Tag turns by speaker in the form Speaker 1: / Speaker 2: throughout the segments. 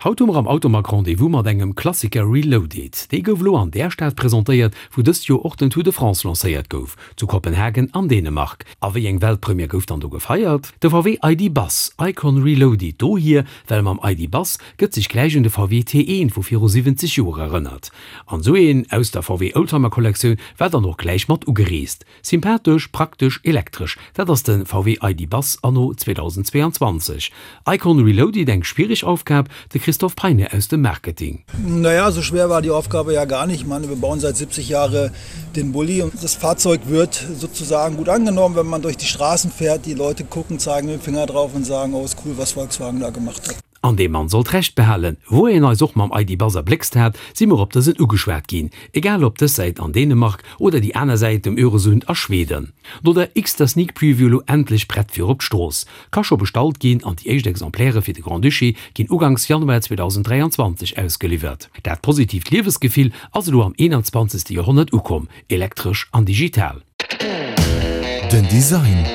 Speaker 1: Haut hu mer am Automag Rendez-vous mat engem Klassiker Reloaded. Dee gouf elo an där Stad presentéiert, wou dëst Joer och den Tour de France lancéiert gouf, zu Kopenhagen an Dänemark. A wéi eng Weltpremière gouf dann do gefeiert? De VW ID. Buzz Icon Reloaded. Dohier, well mam ID. Buzz gëtt sech gläich un de VW T1 vu viru 70 Joer erënnert. An esou een aus der VW Oldtimer Kollektioun war dann och gläich mat ugereest. Sympathesch, praktesch, elektresch, dat ass de VW ID. Buzz anno 2022. Icon Reloaded, eng schwiereg Aufgab? De Christophe Peine aus dem Marketing.
Speaker 2: Naja, so schwer war die Aufgabe ja gar nicht. Ich meine, wir bauen seit 70 Jahre den Bulli und das Fahrzeug wird sozusagen gut angenommen, wenn man durch die Straßen fährt. Die Leute gucken, zeigen mit dem Finger drauf und sagen, oh, ist cool, was Volkswagen da gemacht hat.
Speaker 1: An dee Mann sollt Recht behalen. Wou een eis och mam ID. Buzz erbléckst hat, si mer op dësen ugeschwat ginn, egal op dës Säit an Dänemark oder déi aner Säit um Öresund a Schweden. No der x-ter Sneak Preview elo endlech prett fir op d'Strooss. Ka scho bestallt ginn an déi éischt Exemplaire fir de Grand-Duché ginn uganks Januar 2023 ausgeliwwert. Dat positiivt Liewesgefill ass elo am 21. Joerhonnert ukomm, elektresch an digital.
Speaker 3: Den Design.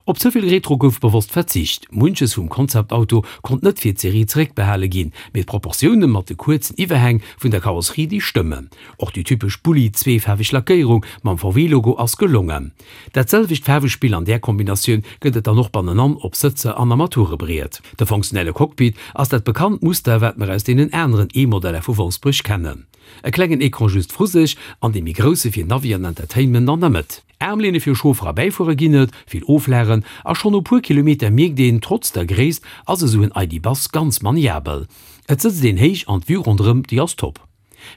Speaker 1: Op ze vill Retro gouf bewosst verzicht. Munches vum Concept-Auto konnt net fir d'Serie zeréckbehale ginn, mee d'Proportioune mat de kuerzen Iwwerhäng vun der Karosserie, déi stëmmen. Och déi typesch Bulli-zweefaarweg Lackéierung mam VW-Logo ass gelongen. Dat selwecht Faarwespill an där Kombinatioun gëtt et dann och bannenan op Sëtzer an Armaturebriet. De funktionelle Cockpit ass dat bekannt Muster, wat mer aus deenen aneren E-Modeller vu Wolfsbuerg kennen. E klengen Ecran just vru sech an dee méi grousse fir Navi an Entertainment an der Mëtt. Aarmlehne fir Chauffer a Bäifuerer ginn et, vill Oflagen a schonn no puer Kilometer mierkt een, trotz der Gréisst ass esou en ID Buzz ganz maniabel. Et sëtzt een héich an d'Vue ronderëm déi ass top.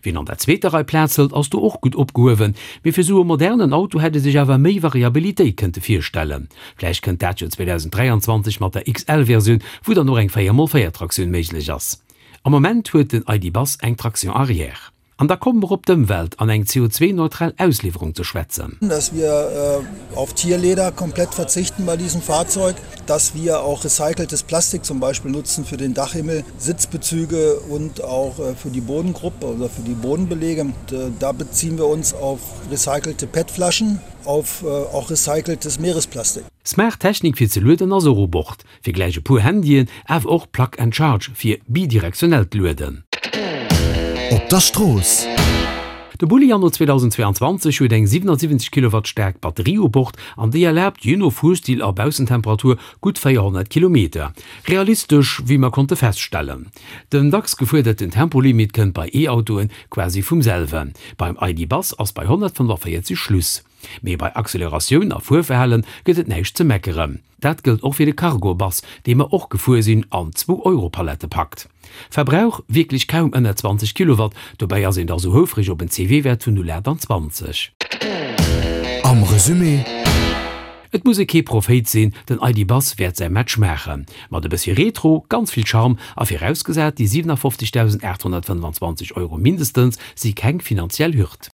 Speaker 1: Wien an der zweeter Rei Plaz hëlt ass do och gutt opgehuewen, mee fir esou e modernen Auto hätt ee sech awer méi Variabilitéit kënnte virstellen. Vläicht kënnt dat jo 2023 mat der XL-Versioun, wou dann och eng 4 x 4 Traktioun méiglech ass. Am Moment huet den ID Buzz eng Traction arrière. An da komme mer op d'Ëmwelt an eng CO2-neutral Ausliwwerung ze schwätzen.
Speaker 2: Dass wir auf Tierleder komplett verzichten bei diesem Fahrzeug, dass wir auch recyceltes Plastik zum Beispiel nutzen für den Dachhimmel, Sitzbezüge und auch für die Bodengruppe oder für die Bodenbelege. Da beziehen wir uns auf recycelte PET-Flaschen, auf auch recyceltes Meeresplastik.
Speaker 1: Smart Technik fir ze lueden ass och u Bord. Fir gläich e puer Handyen, awer och Plug and Charge fir bidirektionellt Lueden.
Speaker 3: Op der Strooss.
Speaker 1: De Bulli anno 2022 huet eng 77 Kilowatt staark Batterie u Bord an déi erlaabt, jee no Fuerstil a Baussentemperatur, gutt 400 Kilometer. Realistesch, wéi mer konnte feststellen. Den dacks gefuerderten Tempolimit kënnt bei E-Autoen quasi vum selwen. Beim ID. Buzz ass bei 145 Schluss. Mee bei Acceleratioun a Fuerverhalen gëtt et näischt ze meckeren. Dat gëllt och fir de Cargo-Bus, dee mer och gefuer sinn an zwou Europalette packt. Verbrauch, wierklech kaum ënner 20 Kilowatt, dobäi ass een da sou houfreg op en CW-Wäert vun 0,28.
Speaker 3: Am Resumé.
Speaker 1: Et muss ee kee Prophéit sinn, den ID. Buzz wäert säi Match maachen. Mat e bëssi Retro, ganz vill Charme a virausgesat déi 57.825 Euro mindestens si keng finanziell Hürd.